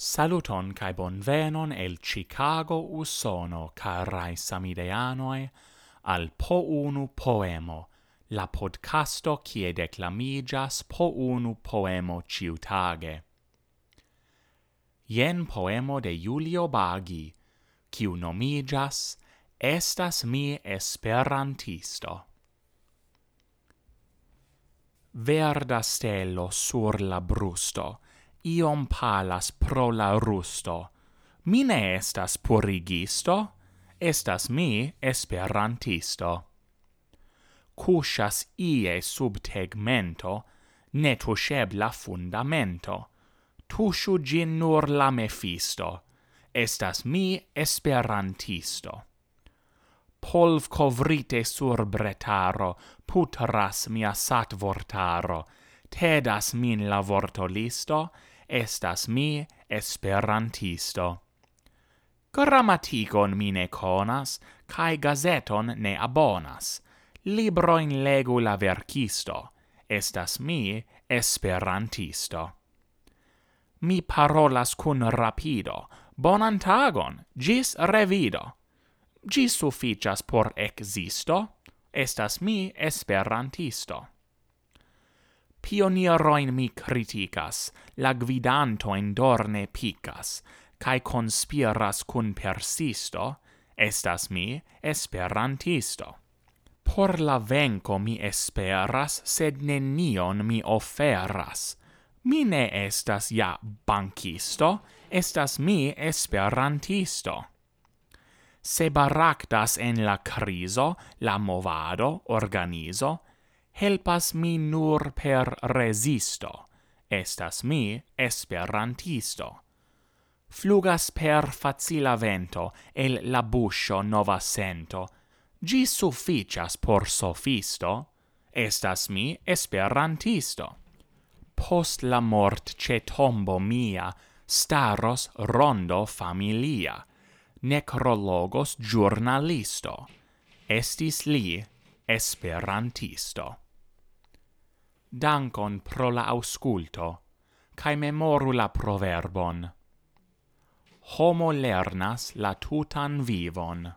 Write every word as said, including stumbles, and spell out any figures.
Saluton kaj bonvenon el Chicago, Usono, karaj samideanoj, al Po Unu Poemo, la podcasto kie deklamiĝas po unu poemo ĉiutage. Jen poemo de Julio Bagi, kiu nomiĝas Estas mi esperantisto. Verda stelo sur la brusto, iom palas pro la rusto. Mi ne estas purigisto, estas mi esperantisto. Kuŝas ie sub tegmento, netuŝebla fundamento. Tuŝu ĝin nur la mefisto, estas mi esperantisto. Polvkovrite sur bretaro, putras mia satvortaro, tedas min la vortolisto, estas mi esperantisto. Gramatigon mi ne konas, kaj gazeton ne abonas. Librojn legu la verkisto, estas mi esperantisto. Mi parolas kun rapido, bonan tagon, ĝis revido. Ĝi sufiĉas por ekzisto, estas mi esperantisto. Pionirojn mi kritikas, la gvidantojn dorne pikas, kaj konspiras kun persisto, estas mi esperantisto. Por la venko mi esperas, sed nenion mi oferas. Mi ne estas ja bankisto, estas mi esperantisto. Se baraktas en la krizo, la movado, organizo, helpas mi nur per rezisto, estas mi esperantisto. Flugas per facila vento el la buŝo nova sento, ĝi sufiĉas por sofisto, estas mi esperantisto. Post la mort ĉe tombo mia staros rondo familia, nekrologos ĵurnalisto, estis li esperantisto. Dankon pro la aŭskulto, kaj memoru la proverbon: Homo lernas la tutan vivon.